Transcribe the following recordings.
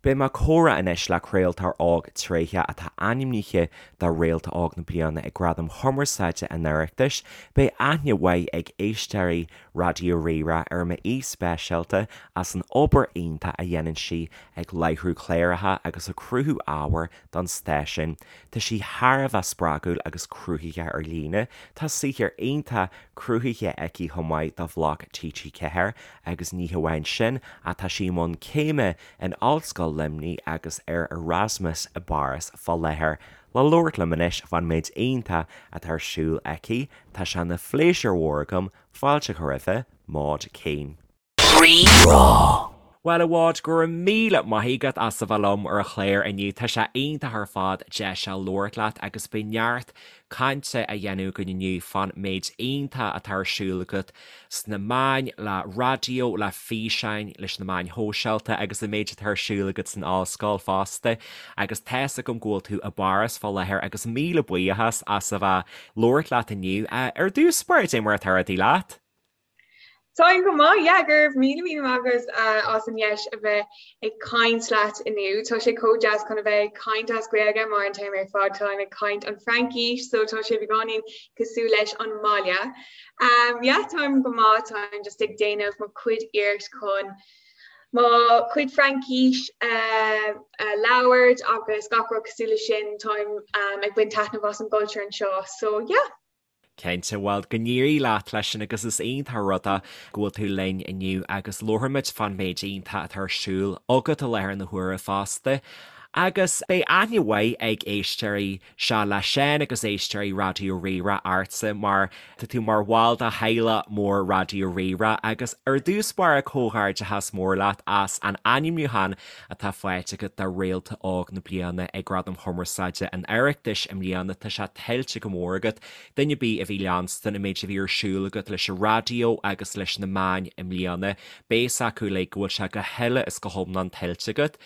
Beidh mé ag comhrá anois le craoltóir óg tréitheach atá ainmnithe do Réalta Óg na Bliana ag Gradaim Chumarsáide an Oireachtais. Beidh aithne mhaith ag éisteoirí Raidió Rí-Rá ar m'aoi speisialta as an obair iontach a dhéanann sí ag láithriú cláracha agus ag cruthú ábhair don stáisiún. Tá sí thar a bheith spreagúil agus cruthaitheach ar líne. Tá saothar iontach cruthaithe aici chomh maith do bhloc TG4 agus ní hamháin sin ach tá sí i mbun céime in Ollscoil Luimnigh agus ar Erasmus i bPáras fá láthair. Le labhairt liom anois fán méid iontach atá ar siúl aici, tá sé ina phléisiúr mhór agam fáilte a chur roimhe, Maud Keane. Rí-Rá. Bhuel, a Mhaud, go raibh míle maith agat as a bheith liom ar an chlár inniu. Tá sé iontach ar fad deis a labhairt leat agus beidh neart cainte á dhéanamh againn inniu fán méid iontach atá ar siúl agat sna meáin, le raidió, le físeáin, leis na meáin shóisialta agus an méid atá ar siúl agat san ollscoil fosta. Agus tá's agam go bhfuil tú i bPáras fá láthair agus míle buíochas as a bheith labhairt leat inniu. Ar dtús báire, cad é mar atá rudaí leat? Táim go maith, yeah, go raibh míle míle maith agat as an dheis a bheith ag caint leat inniu. Tá sé chomh deas chun a bheith ag caint as Gaeilge mar an t-am ar fad táim ag caint an Fraincis so tá sé beagáinín cosúil leis an mbaile. Um, yeah, táim go maith, táim just ag déanamh mo chuid iarracht chun mo chuid Fraincis uh, uh, labhairt agus gach rud cosúil leis sin táim um, ag baint taitneamh as an gcultúr anseo. So yeah. Cinnte, bhuel, go n-éirí leat leis sin agus is iontach an rud é go bhfuil tú linn inniu agus labharfaimid fán méid iontach atá ar siúl agat i láthair na huaire fosta. Agus beidh aithne mhaith ag éisteoirí Seo le Seán agus éisteoirí Raidió Rí-Rá ortsa mar tá tú mar bhall de theaghlach mór Raidió Rí-Rá agus ar dtús báire comhghairdeachas mór leat as an ainmniúchán atá faighte agat do Réalta Óg na Bliana ag Gradaim Chumarsáide an Oireachtais i mbliana. Tá sé tuillte go mór agat. Duine ar bith a bhí leanstan an méid a bhí ar siúl agat leis an raidió agus leis na meáin i mbliana, beidh fhios acu uilig go bhfuil sé go huile is go hiomlán tuillte agat.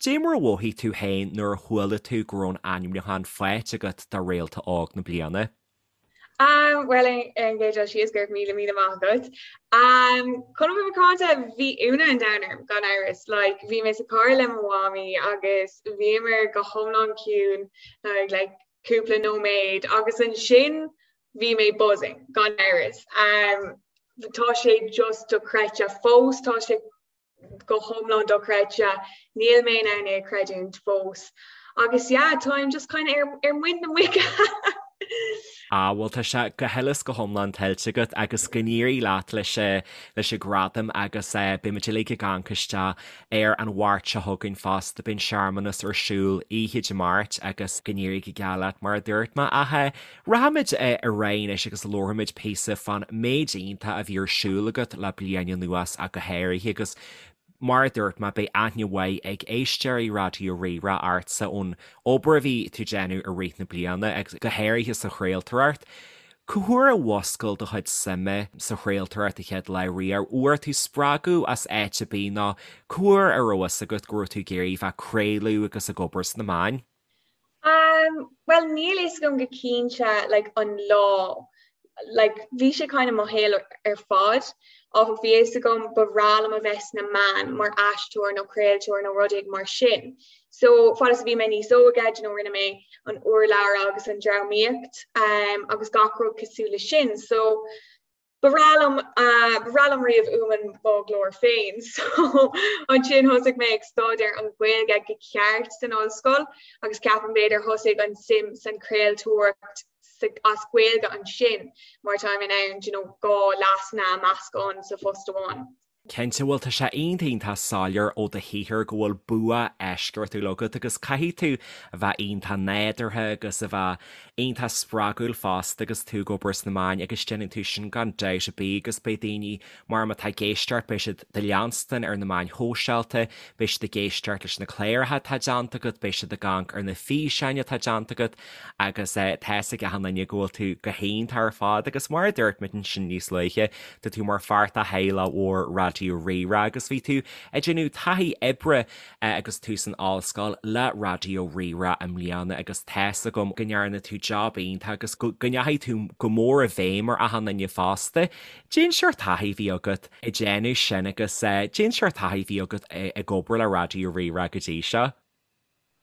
Dé mar a mhothaigh tú féin nuair a chuala tú go raibh an ainmniúchán faighte agat do Réalta Óg na Bliana? Um, bhuel ar an gcéad dul síos go raibh míle míle maith agat. Um, chun a bheith macánta bhí ionadh an domhain orm gan amhras, like, bhí mé sa charr le mo mhamaí agus bhíomar go hiomlán ciúin like, like, cúpla nóiméad agus ansin bhí mé buzzing gan amhras. Um, tá sé just dochreidte fós, tá sé go hiomlán dochreidte, níl mé in ann é a chreidiúint fós. Agus yeah, táim just kind of ar, ar muin na muice. Ah, bhuel tá sé go huile is go hiomlán tuillte agat agus go n-éirí leat leis leis an gradam agus eh, beidh muid uilig ag amharc isteach ar an Mháirt seo chugainn fosta, beidh an searmanas ar siúl oíche Dé Máirt agus go n-éirí go geal leat mar a dúirt mé ach eh, Rachaimid ar aghaidh anois agus labharfaimid píosa fán méid iontach a bhí ar siúl agat le bliain anuas ach go háirithe agus mar a dúirt mé beidh aithne mhaith ag éisteoirí Raidió Rí-Rá ortsa ón obair a bhí tú ag déanamh i rith na bliana agus go háirithe sa chraoltóireacht. Cá huair a mhuscail do chuid suime sa chraoltóireacht an chéad lá riamh? Bhfuair tú spreagadh as áit ar bith nó cá huair a raibh fhios agat go raibh tú ag iarraidh bheith ag craoladh agus ag obair sna meáin? Um, well níl fhios agam go cinnte like, an lá like, bhí sé kind of mo shaol ar fad áfach bhí fhios agam ba bhreá liom a bheith sna meáin mar aisteoir nó craoltóir nó rud éigin mar sin. So fad is a bhí mé níos óige, you know, rinne mé an urlabhra agus an drámaíocht um, agus gach rud cosúil le sin. So Ba bhreá liom, ba bhreá liom riamh uaim mo ghlór féin so ansin thosaigh mé ag staidéar an Ghaeilge go ceart san ollscoil agus ceapaim b'fhéidir thosaigh an suim san chraoltóireacht as Gaeilge ansin mar táim in ann you know dhá leasanna a meascán sa phost amháin. Cinnte, bhuel tá sé iontach iontach soiléir ó do shaothar go bhfuil bua eisceachtúil agat agus caithfidh tú a bheith iontach nádúrtha agus a bheith iontach spreagúil fosta agus tú ag obair sna meáin agus déanann tú sin gan dabht ar bith agus beidh daoine mar má tá ag éisteacht beidh siad do leanstan ar na meáin shóisialta, beidh siad ag éisteacht leis na cláracha atá déanta agat, beidh siad ag amharc ar na físeáin atá déanta agat agus tá fhios ag achan duine go bhfuil tú go hiontach ar fad agus mar a dúirt muid ansin níos luaithe, tá tú mar pháirt de theaghlach mhór Raidió. Raidió Rí-Rá agus bhí tú ag déanamh taithí oibre agus tú san ollscoil le Raidió Rí-Rá i mbliana agus tá's agam go ndearna tú job iontach agus go ndeachaigh tú go mór i bhfeidhm ar achan duine fosta. Cén seort taithí a bhí agat ag déanamh sin agus cén seort taithí a bhí agat ag obair le Raidió Rí-Rá go dtí seo?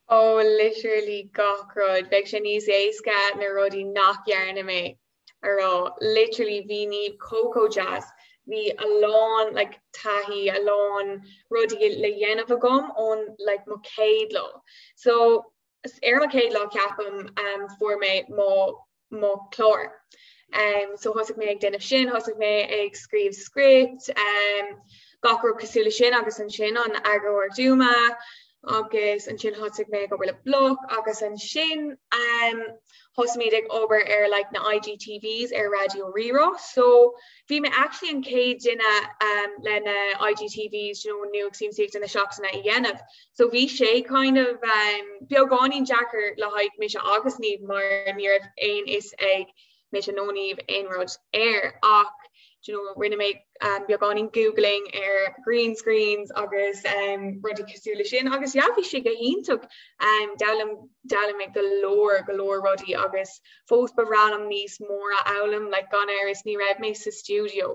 Oh literally gach rud. Bheadh sé níos éasca na rudaí nach dhearna mé a rá. Literally bhí Niamh chomh chomh deas. Bhí a lán like taithí, a lán rudaí le dhéanamh agam ón like mo chéad lá. So ar mo chéad lá ceapaim um, fuair mé mo mo chlár. Um, so thosaigh mé ag déanamh sin, thosaigh mé ag scríobh script, um, gach rud cosúil le sin agus ansin an eagarthóir Duma agus ansin thosaigh mé ag obair le Bloc agus ansin um, thosaigh muid ag obair ar like, na IGTVs ar Raidió Rí-Rá. So bhí mé actually an chéad duine um, le na IGTVs you know, nuacht siamsaíochta na seachtaine a dhéanamh. So bhí sé kind of um, beagáinín deacair le haghaidh mise agus Niamh mar ní raibh aon fhios ag mise nó Niamh aon rud air ach you know, rinne mé um, beagáinín googling ar green screens agus um, rudaí cosúil le sin agus yeah, bhí sé go hiontach um, d'fhoghlaim d'fhoghlaim mé go leor go leor rudaí agus fós ba bhreá liom níos mór a fhoghlaim like, gan amhras ní raibh mé sa studio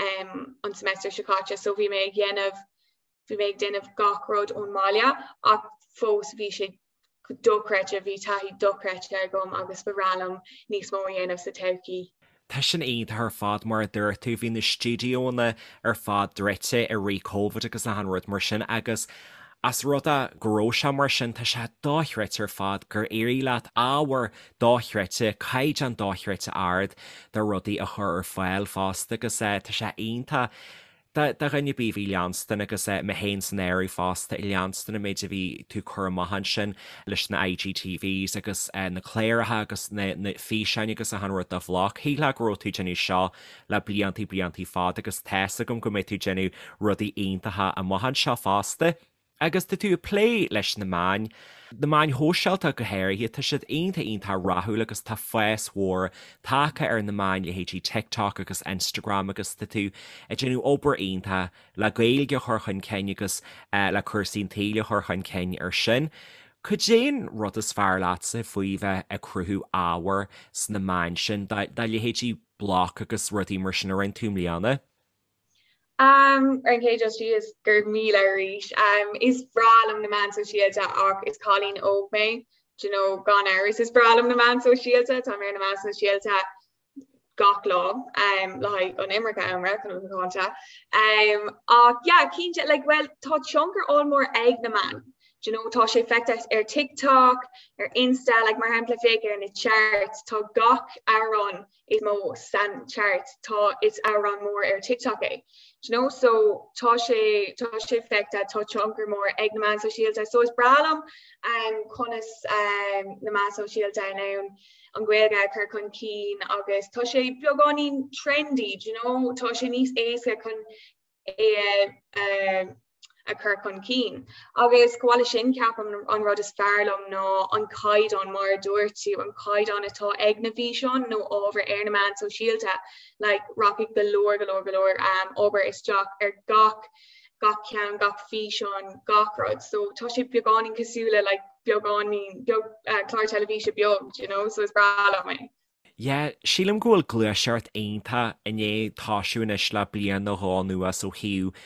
um, an semester seo caite so bhí mé ag dhéanamh Bhí mé ag déanamh gach rud ón mbaile ach fós bhí sé dochreidte, bhí taithí dochreidte agam agus ba bhreá liom níos mó a dhéanamh sa todhchaí. Tá sin iontach ar fad, mar a dúirt tú, bhí na stiúideónna ar fad druidte i rith Covid agus achan rud mar sin agus as rud é go raibh sé mar sin, tá sé dochreidte ar fad gur éirigh leat ábhar dochreidte, caighdeán dochreidte ard de rudaí a chur ar fáil fosta agus tá sé iontach. Do dhuine ar bith a bhí ag leanstan agus mé féin san áireamh fosta ag leanstan an méid a bhí tú ag cur amach ansin leis na IGTVs agus na cláracha agus na físeáin agus achan rud do Bhloc. Shílfeá go raibh tú ag déanamh seo le bliantaí bliantaí fada agus tá's agam go mbeidh tú ag déanamh rudaí iontacha amach anseo fosta. Agus tá tú ag plé leis na meáin, na meáin shóisialta go háirithe, tá siad iontach iontach rathúil agus tá fás mhór tagtha ar na meáin, leithéidí TikTok agus Instagram agus tá tú ag déanamh obair iontach le Gaeilge a chur chun cinn agus le cúrsaí an tsaoil a chur chun cinn ar sin. Cad é an rud is fearr leatsa faoi bheith ag cruthú ábhair sna meáin sin, do leithéidí Bloc agus rudaí mar sin a rinne tú i mbliana? Um, ar an chéad dul síos, go raibh míle arís. Um, is breá liom na meáin sóisialta ach is cailín óg mé, do you know, gan amhras is breá liom na meáin sóisialta, tá mé ar na meáin sóisialta gach lá um, le haghaidh an iomarca ama chun a bheith macánta. Um, ach yeah, cinnte, like, well, tá tionchar ollmhór ag na meáin. Do you know, tá sé feicthe ar TikTok, ar Insta, like, mar shampla féach ar na charts, tá gach amhrán is mó san chart tá is amhrán mór ar TikTok é. Do you know so tá sé tá sé feicthe tá tionchar mór ag na meáin sóisialta so is breá liom um, conas um, na meáin sóisialta in ann an Ghaeilge a chur chun cinn agus tá sé beagáinín trendy, do you know tá sé níos éasca chun é a chur chun cinn. Agus chomh maith leis sin ceapaim an rud is fearr liom ná an caighdeán mar a dúirt tú, an caighdeán atá ag na bhfíseáin nó ábhar ar na meáin sóisialta, like rachaidh go leor go leor go leor um, obair isteach ar gach gach ceann, gach físeán, gach rud. So tá sé beagáinín cosúil le like beagáinín beag uh, clár teilifíse beag, you know, so is breá liom é. Yeah, sílim go bhfuil gluaiseacht iontach i ndiaidh toisiú anois le bliain nó dhó anuas ó thaobh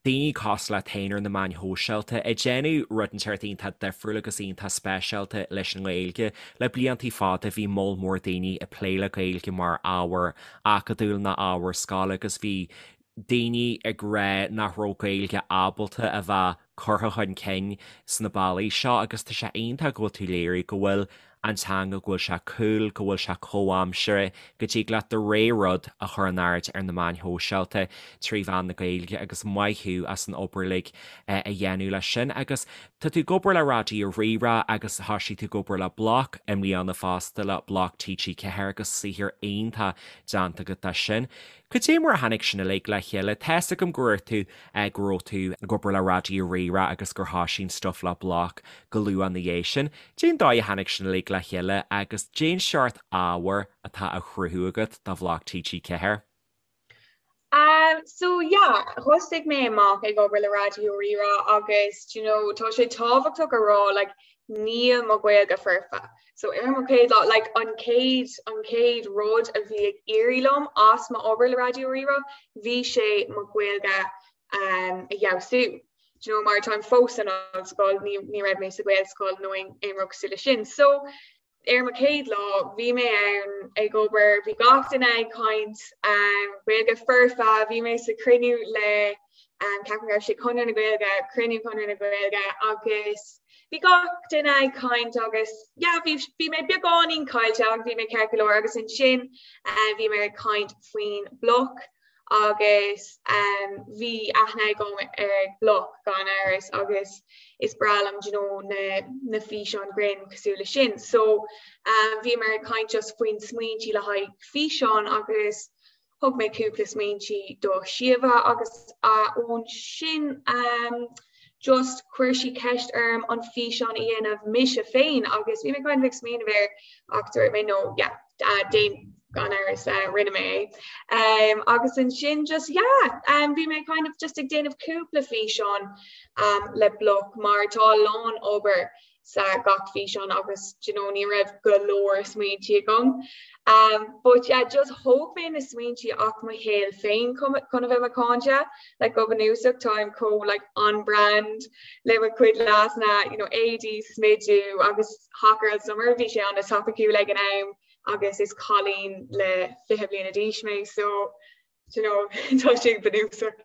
daoine cosúil leat féin ar na meáin shóisialta ag déanamh rud inteacht iontach difriúil agus iontach speisialta leis an nGaeilge. Le bliantaí fada bhí moll mór daoine ag plé le Gaeilge mar ábhar acadúil nó ábhar scoile agus bhí daoine ag rá nach raibh Gaeilge ábalta a bheith curtha chun cinn sna bealaí seo agus tá sé iontach go bhfuil tú ag léiriú go bhfuil an teanga, go bhfuil sé cool, go bhfuil sé comhaimseartha, go dtig leat do rogha rud a chur in airde ar na meáin shóisialta trí mheán na Gaeilge agus maith thú as an obair uilig a dhéanamh leis sin. Agus tá tú ag obair le Raidió Rí-Rá agus thoisigh tú ag obair le Bloc i mbliana fosta, le Bloc TG4 agus saothar iontach déanta agat de sin. Cad é mar a tháinig sin uilig le chéile? Tá's agam go raibh tú, go raibh tú ag obair le Raidió Rí-Rá agus gur thoisigh an stuif le Bloc go luath ina dhiaidh sin. Cén dóigh a tháinig sin uilig le chéile agus cén seort ábhair atá á chruthú agat do Bhloc TG4? Um so yeah, thosaigh mé amach ag obair le Raidió Rí-Rá agus do you know tá sé tábhachtach a rá like níl mo Ghaeilge foirfe. So ar mo chéad lá like an chéad an chéad rud a bhí ag éirí liom as mo obair le Raidió Rí-Rá bhí sé mo Ghaeilge um a fheabhsú. Do you know mar táim fós san ollscoil ní ní raibh mé sa Ghaelscoil nó aon aon rud cosúil leis sin. So Ar mo chéad lá, bhí mé ann ag obair, bhí gach duine ag caint Gaeilge foirfe, bhí mé sa chruinniú le ceapaim go raibh sé Conradh na Gaeilge, cruinniú Chonradh na Gaeilge agus bhí gach duine ag caint agus yeah bhí bhí mé beagáinín caillte ach bhí mé ceart go leor agus ansin bhí mé ag caint faoin Bloc agus bhí aithne agam ar Bloc gan amhras agus is breá liom do you know na na físeáin grinn cosúil leis sin. So bhíomar ag caint just faoin smaointí le haghaidh físeán agus thug mé cúpla smaointí do Síomha agus ón sin just chuir sí ceist orm an físeán a dhéanamh mise féin agus bhí mé kind of ag smaoineamh air ach dúirt mé no yeah déan gan amhras rinne mé é. Um, agus ansin just yeah, um, bhí mé kind of just ag déanamh cúpla físeán um, le Bloc mar tá a lán obair sa gach físeán agus do you know, ní raibh go leor smaointe agam. Um, but yeah, just thóg mé na smaointe as mo shaol féin chun a bheith macánta, like go bunúsach táim chomh like on brand le mo chuid leasanna, you know, éadaí, smidiú agus Hot Girl Summer bhí sé an-topiciúil ag an am agus is cailín le 20 bliana d'aois mé so you know tá sé bunúsach.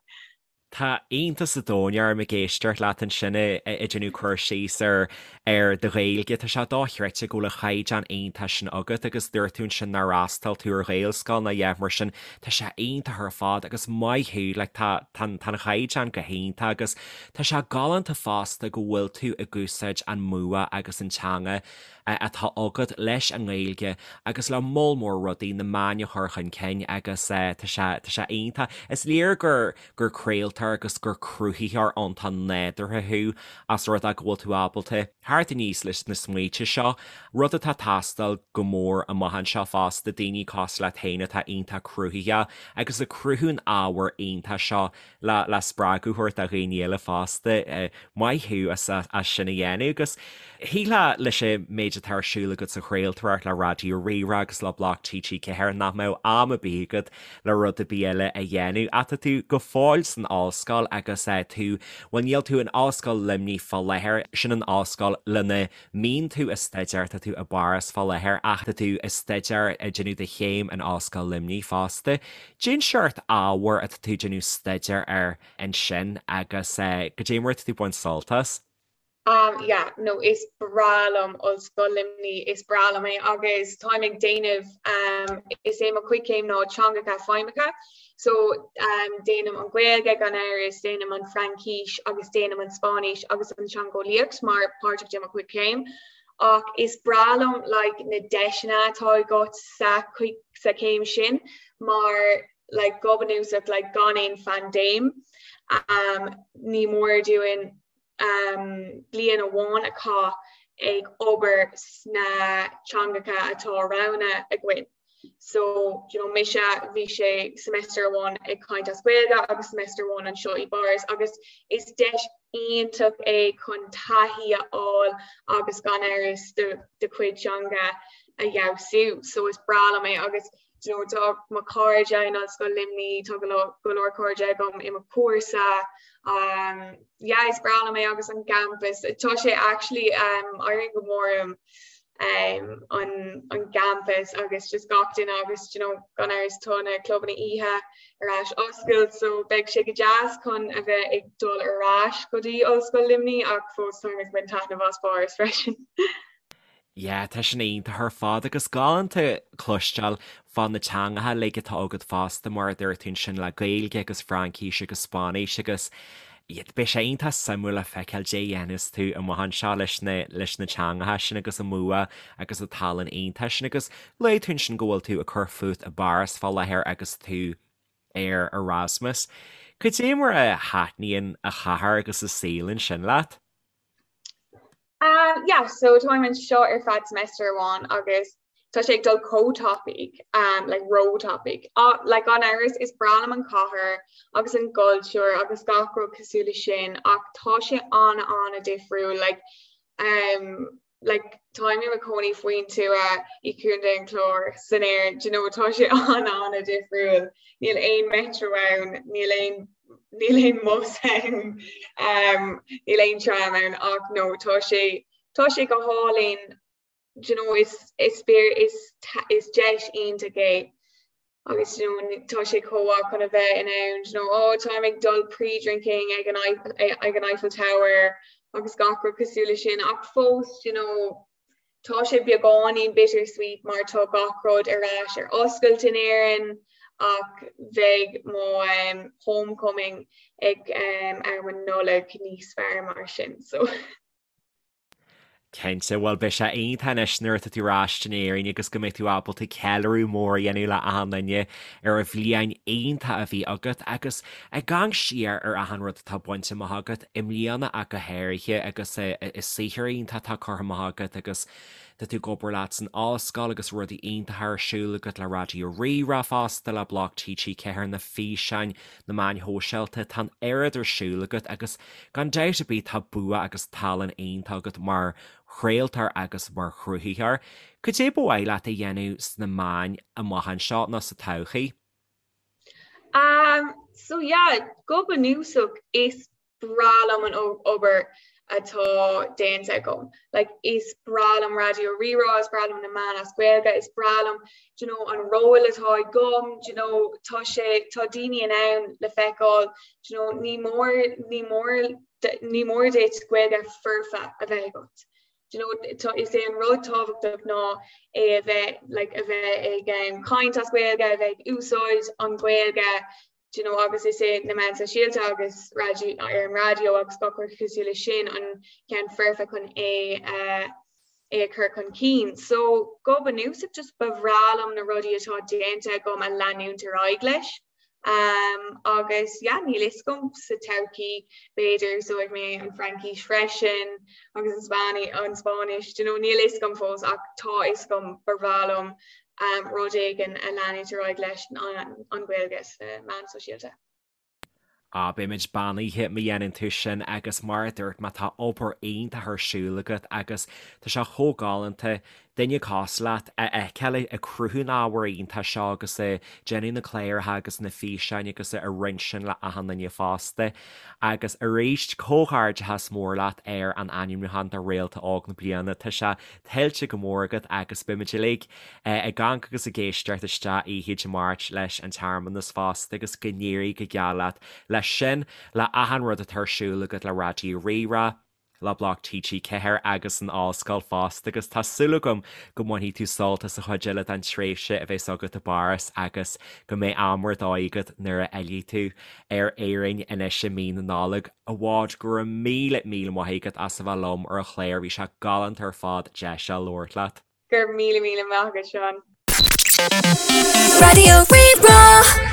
Tá iontas an domhain orm ag éisteacht leat ansin ag déanamh cur síos ar ar do Ghaeilge. Tá sé dochreidte go bhfuil an chaighdeán iontach sin agat agus dúirt tú ansin nár fhreastail tú ar Ghaelscoil ná a dhath mar sin. Tá sé iontach ar fad agus maith thú, like tá tá an chaighdeán go hiontach agus tá sé galánta fosta go bhfuil tú ag úsáid an mbua agus an teanga atá agat leis an nGaeilge agus le moll mór rudaí, na meáin a chur chun cinn agus tá sé, tá sé iontach. Is léir gur, gur craoltóir agus gur cruthaitheoir iontach nádúrtha thú as rud é go bhfuil tú ábalta theacht aníos leis na smaointe seo, rud atá ag teastáil go mór amach anseo fosta, daoine cosúil leat féin atá iontach cruthaitheach agus ag cruthú an ábhair iontach seo le le spreagadh a thabhairt do dhaoine eile fosta. Maith thú as as sin a dhéanamh agus shílfeá leis an méid atá ar siúl agat sa chraoltóireacht le Raidió Rí-Rá agus le Bloc TG4 nach mbeadh am ar bith agat le rud ar bith eile a dhéanamh. Ach tá tú go fóill san ollscoil agus tú, bhuel níl tú in Ollscoil Luimnigh fá láthair, sin an ollscoil lena mbíonn tú ag staidéar, tá tú i bPáras fá láthair ach tá tú ag staidéar, ag déanamh do chéim in Ollscoil Luimnigh fosta. Cén seort ábhair atá tú ag déanamh staidéar air ansin agus goidé mar atá tú ag baint sult as? Um yeah, no is breá liom Ollscoil Luimnigh, is breá liom é agus táim ag déanamh um is é mo chuid céim ná teangacha feidhmeacha so um déanaim an Ghaeilge gan amhras, déanaim an Fraincis agus déanaim an Spáinnis agus an teangeolaíocht mar páirteach de mo chuid céim ach is breá liom like na deiseanna atá agat sa sa chéim sin mar like go bunúsach like gan aon phaindéim um ní mór dúinn um bliain amháin a chaitheamh ag obair sna teangacha atá roghnaithe againn. So you know mise bhí sé semester amháin ag caint as Gaeilge agus semester amháin anseo i bPáras agus is deis iontach é chun taithí a fháil agus gan amhras do do chuid teanga a fheabhsú. So is breá liom é agus you know tá mo chairde in Ollscoil Luimnigh, tá go leor go leor cairde agam i mo chúrsa um yeah is breá liom é agus an campus tá sé actually um éiríonn go mór um um, an, an gcampus agus just gach duine agus you know, gan amhras tá na clubanna oíche ar ais oscailt so beidh sé go deas chun a bheith ag dul ar ais go dtí Ollscoil Luimnigh ach fós táim ag baint taitneamh as Páras freisin. Yeah, tá sin iontach ar fad agus galánta cloisteáil fá na teangacha uilig atá agat fosta mar a dúirt tú ansin le Gaeilge agus Fraincis agus Spáinnis agus Beidh sé iontach suimiúil le feiceáil cad é a dhéanfas tú amach anseo leis na leis na teangacha sin agus an mbua agus an tallann iontach sin agus luaigh tú ansin go bhfuil tú ag cur fút i bPáras fá láthair agus tú ar Erasmus. Cad é mar a thaitníonn an chathair agus an saol ansin leat? Um, yeah, so táim anseo ar feadh semester amháin agus. Tá sé ag dul chomh tapaidh, um, like ró-tapaidh. Uh, like gan amhras is breá liom an chathair agus an gcultúr agus gach rud cosúil leis sin ach tá sé an-an-difriúil like, um, like táim i mo chónaí faoin tuath i gContae an Chláir san Éirinn, do you know, tá sé an-an-difriúil. Níl aon metro ann, níl aon níl aon bus ann, um, níl aon tram ann ach no tá sé tá sé go hálainn do you know, is is is is deis iontach é agus you know, tá sé chomh maith chun a bheith in ann you know, oh, táim ag dul pre-drinking ag an ag an Eiffel Tower agus gach rud cosúil leis sin ach fós you know, tá sé beagáinín bittersweet mar tá gach rud ar ais ar oscailt in Éirinn ach bheidh mo um, homecoming ag um, am an Nollaig níos fearr mar sin so. Cinnte, bhuel beidh sé iontach anois nuair atá tú ar ais in Éirinn agus go mbeidh tú ábalta ceiliúradh mór a dhéanamh le achan duine ar an bhliain iontach a bhí agat agus ag amharc siar ar achan rud atá bainte amach agat i mbliana ach go háirithe agus an saothar iontach atá curtha amach agat agus tá tú ag obair leat san ollscoil agus rudaí iontacha ar siúl agat le Raidió Rí-Rá fosta, le Bloc TG4, na físeáin, na meáin shóisialta, tá an oiread ar siúl agat agus gan dabht ar bith tá bua agus tallann iontach agat mar chraoltóir agus mar chruthaitheoir. Cad é ba mhaith leat a dhéanamh sna meáin amach anseo nó sa todhchaí? Um, so yeah, go bunúsach is breá liom an obair atá déanta agam. Like, is breá liom Raidió Rí-Rá, is breá liom na meáin as Gaeilge, is breá liom do you know, an ról atá agam, do you know, tá sé tá daoine in ann le feiceáil do you know, ní mór ní mór ní mór duit Gaeilge foirfe a bheith agat. Do you know, tá, is é an rud tábhachtach ná é a bheith like, a bheith ag um, caint as Gaeilge, a bheith ag úsáid an Ghaeilge, do you know, agus is é na meáin sóisialta agus raidió ar an raidió agus gach rud cosúil leis sin an ceann foirfe chun é uh, é a chur chun cinn. So go bunúsach just ba bhreá liom na rudaí atá déanta agam a leanúint ar aghaidh leis. Um, agus yeah, níl fhios agam sa todhchaí b'fhéidir úsáidfidh mé an Fraincis freisin agus an Spáinni an Spáinnis, do you know, níl fhios agam fós ach tá fhios agam ba bhreá liom um, rud éigin a leanúint ar aghaidh leis an, an Ghaeilge sna meáin sóisialta. Á, beimid beannaithe má dhéanann tú sin agus mar a dúirt mé tá obair iontach ar siúl agat agus tá sé chomh galánta duine cosúil leat a fheiceáil ag cruthú an ábhair iontach seo agus ag déanamh na cláracha agus na físeáin agus ag roinnt sin le achan duine fosta. Agus arís, comhghairdeachas mór leat ar an ainmniúchán do Réalta Óg na Bliana. Tá sé tuillte go mór agat agus beimid uilig ag amharc agus ag éisteacht isteach oíche Dé Máirt leis an tsearmanas fosta agus go n-éirí go geal leat leis sin, le achan rud atá ar siúl agat le Raidió Rí-Rá, le Bloc TG4 agus an Ollscoil fosta agus tá súil agam go mbainfidh tú sult as an chuid eile den tréimhse a bheas agat i bPáras agus go mbeidh am ar dóigh agat nuair a fhillfidh tú ar Éirinn anois i mí na Nollag. A Mhaud, go raibh míle míle maith agat as a bheith liom ar an chlár, bhí sé galánta ar fad deis a labhairt leat. Go raibh míle míle maith agat Seán. Raidió Rí-Rá.